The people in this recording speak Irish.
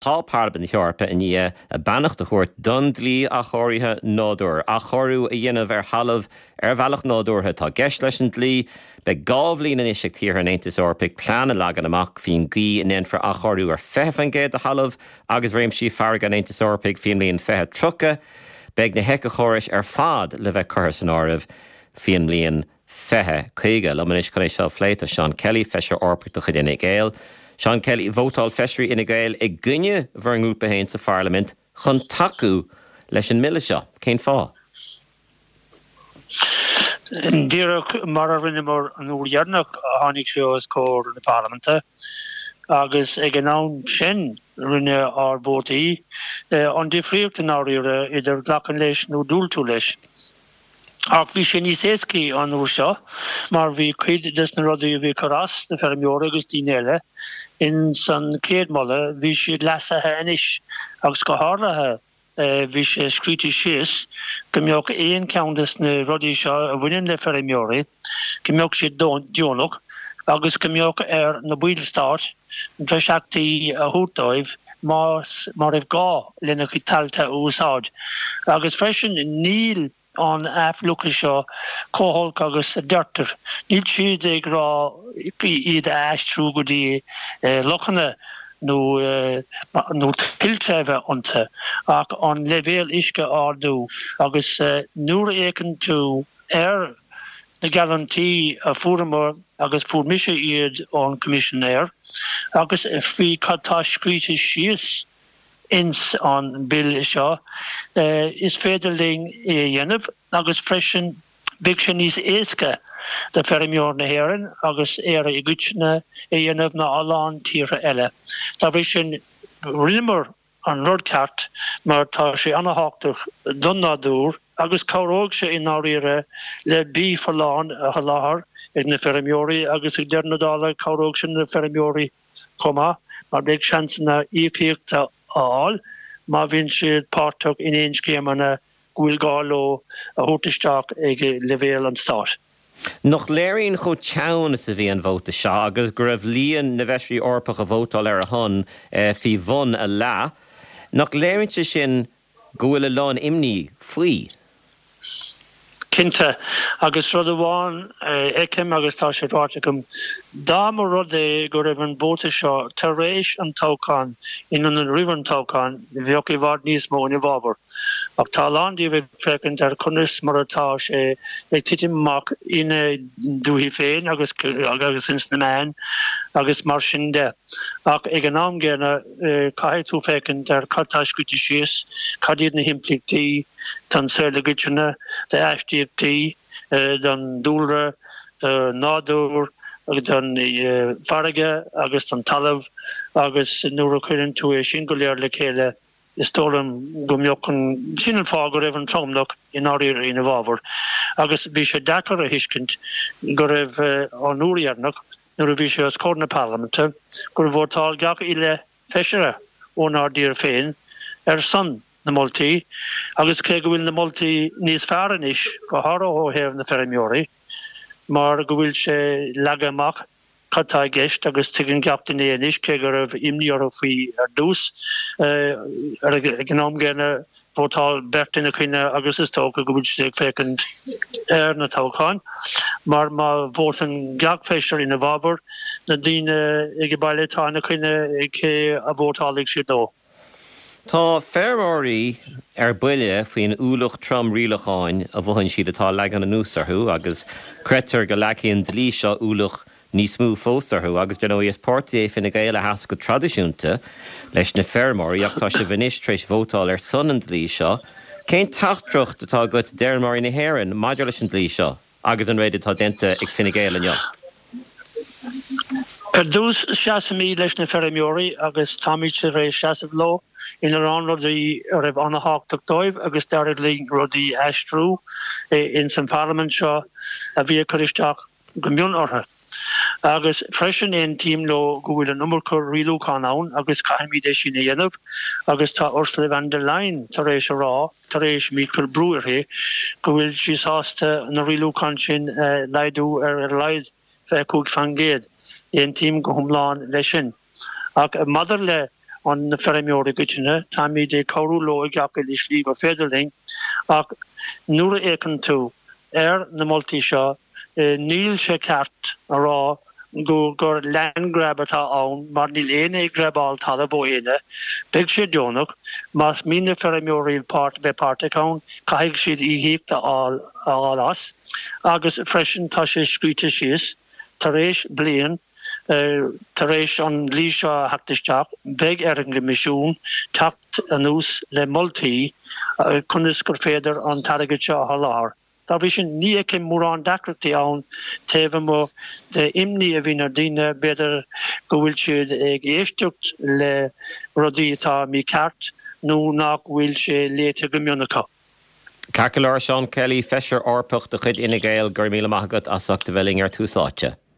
Tá Parlaimint na hEorpa i ndiaidh a beannacht a thabhairt don dlí athchóirithe nádúir. Athchóiriú a dhéanamh ar thalamh ar bhealach nádúrtha atá i gceist leis an dlí. Beidh 2 bhliain anois ag tíortha an Aontais Eorpaigh plean a leagan amach faoin gcaoi a ndéanfar athchóiriú ar 20% de thalamh agus réimsí farraige an Aontais Eorpaigh faoin mbliain 2030. Beidh na héiceachórais ar fad le bheith curtha san áireamh faoin mbliain 2050. Liom anois chun é seo a phlé tá Seán Kelly, Feisire Eorpach de chuid Fhine Gael. Seán Kelly, vótáil feisirí Fhine Gael i gcoinne bhur ngrúpa féin sa Pharlaimint chun tacú leis an mbille seo. Cén fáth? Díreach mar a rinneamar an uair dheireanach a tháinig sé os comhair na Parlaiminte agus ag an am sin rinne ár vótaí an difríocht i ndáiríre idir glacadh leis nó diúltú leis. Ach bhí sé níos éascaí an uair seo mar bhí cuid des na rudaí a bhí ag cur as do feirmeoirí agus daoine eile ins an chéad moladh, bhí siad leasaithe anois agus go háirithe bhí sé scríte síos go mbeadh aon cheann des na rudaí seo a bhaineann le feirmeoirí, go mbeadh siad deonach agus go mbeadh ar na baill stáit breisachtaí a thabhairt dóibh más má raibh gá lena gcuid tailte a úsáid. Agus freisin níl an athfhliuchadh seo chomh holc agus a deirtear. Níl siad ag rá iad a aistriú go dtí lochanna nó nó tuilte a bheith iontu ach an leibhéal uisce a ardú agus nuair a fhéachann tú ar na geallúintí a fuaireamar agus fuair mise iad ón Coimisinéir agus faoi cad tá scríte síos ins an Bille seo, is féidir linn é a dhéanamh agus freisin beidh sé níos éasca do feirmeoir na hÉireann agus Éire i gcoitinne é a dhéanamh ná a lán tíortha eile. Dá bhrí sin, rinneamar an rud ceart mar tá sé ana-thábhachtach don nádúr agus cabhróidh sé i ndáiríre le bia folláin a sholáthar ag na feirmeoirí agus ag deireadh na dála cabhróidh sé na feirmeoirí chomh maith mar beidh seansanna íocaíocht a fháil má bhíonn siad páirteach in aon scéimeanna go bhfuil gá leo a thabhairt isteach ag leibhéal an stáit. Nach léiríonn chomh teann is a bhí an vóta seo agus go raibh líon na bhfeisirí Eorpach a vótáil ar a shon faoi bhun a leath, nach léiríonn sé sin go bhfuil a lán imní faoi? Cinnte. Agus rud amháin a fheicim agus tá sé ráite agam, dá mba rud é go raibh an vóta seo tar éis an toghcháin in ionad roimh an toghchán, bheadh i bhfad níos mó ina bhfabhar. Ach tá a lán díobh ag féachaint ar conas mar atá sé ag titim amach ina ndúichí féin agus agus ins na meáin agus mar sin de. Ach ag an am gcéanna caithfidh tú féachaint ar cad tá scríte síos, cad iad na himpleachtaí don saol i gcoitinne, d'aistíochtaí, don dúlra, don nádúr, don farraige agus don talamh agus nuair a chuireann tú é sin go léir le chéile, Is dóigh liom go mbeadh an, sin an fáth go raibh an tromlach i ndáiríre ina bhfabhar agus bhí sé deacair a thuiscint go raibh an uair dheireanach nuair a bhí sé os comhair na Parlaiminte gur vótáil gach uile feisire ónár dtír féin ar son na moltaí agus cé go bhfuil na moltaí níos fearr anois go háirithe ó thaobh na feirmeoirí mar go bhfuil sé leagtha amach cad tá i gceist agus tuigeann gach duine é anois, cé go raibh imní orthu faoi ar dtús. Ag an am gcéanna, vótáil beirt ina choinne agus is dócha go bhfuil siad ag féachaint ar na toghcháin, mar má vótann gach feisire ina bhfabhar, na daoine ag baile atá ina choinne, cé a vótálfaidh siad dó? Tá feirmeoirí ar buile faoin ualach trom rialacháin a mhothaíonn siad atá leagtha anuas orthu agus creidtear go leagfaidh an dlí seo ualach níos mó fós orthu agus dar ndóigh is páirtí é Fine Gael a sheas go traidisiúnta leis na feirmeoirí ach tá sibh anois tar éis vótáil ar son an dlí seo. Cén teachtaireacht atá agat d'fheirmeoirí na hÉireann maidir leis an dlí seo? agus an méid atá déanta ag Fine Gael inniu. Ar dtús, seasaimid leis na feirmeoirí agus táimid tar éis seasamh leo ina lán rudaí a raibh an-thábhachtach dóibh agus d'éirigh linn rudaí a aistriú ins an Pharlaimint seo a bhí ag cur isteach go mion orthu. Agus freisin aontaím leo go bhfuil an iomarca rialúchán ann agus caithfimid é sin a dhéanamh agus tá Ursula von der Leyen tar éis a rá, tar éis muid cur brú uirthi, go bhfuil sí sásta na rialúcháin sin a laghdú ar a laghad 25%. Aontaím go hiomlán leis sin. Ach maidir le. na feirmeoirí i gcoitinne, táimid ag cabhrú leo i gach uile slí gur féidir linn, ach nuair a fhéachann tú ar na moltaí seo, níl sé ceart a rá go gur land grab atá ann mar níl éinne ag grabáil talamh ó éinne. Beidh sé deonach. Más mian le feirmeoirí páirt bheith páirteach ann, caithfidh siad íocaíocht a fháil as. Agus freisin tá sé scríte síos, tar éis bliain, tar éis an dlí seo a theacht isteach, beidh ar an gCoimisiún teacht anuas le moltaí conas gur féidir an t-airgead seo a sholáthar. Dá bhrí sin, ní fheicim mórán deacrachtaí ann taobh amuigh de imní a bhíonn ar daoine, b'fhéidir go bhfuil siad ag éisteacht le rudaí atá mícheart nó nach bhfuil sé léite go mion acu. Ceart go leor, Seán Kelly, Feisire Eorpach de chuid Fhine Gael, go raibh míle maith agat as ucht a bheith linn ar Tús Áite.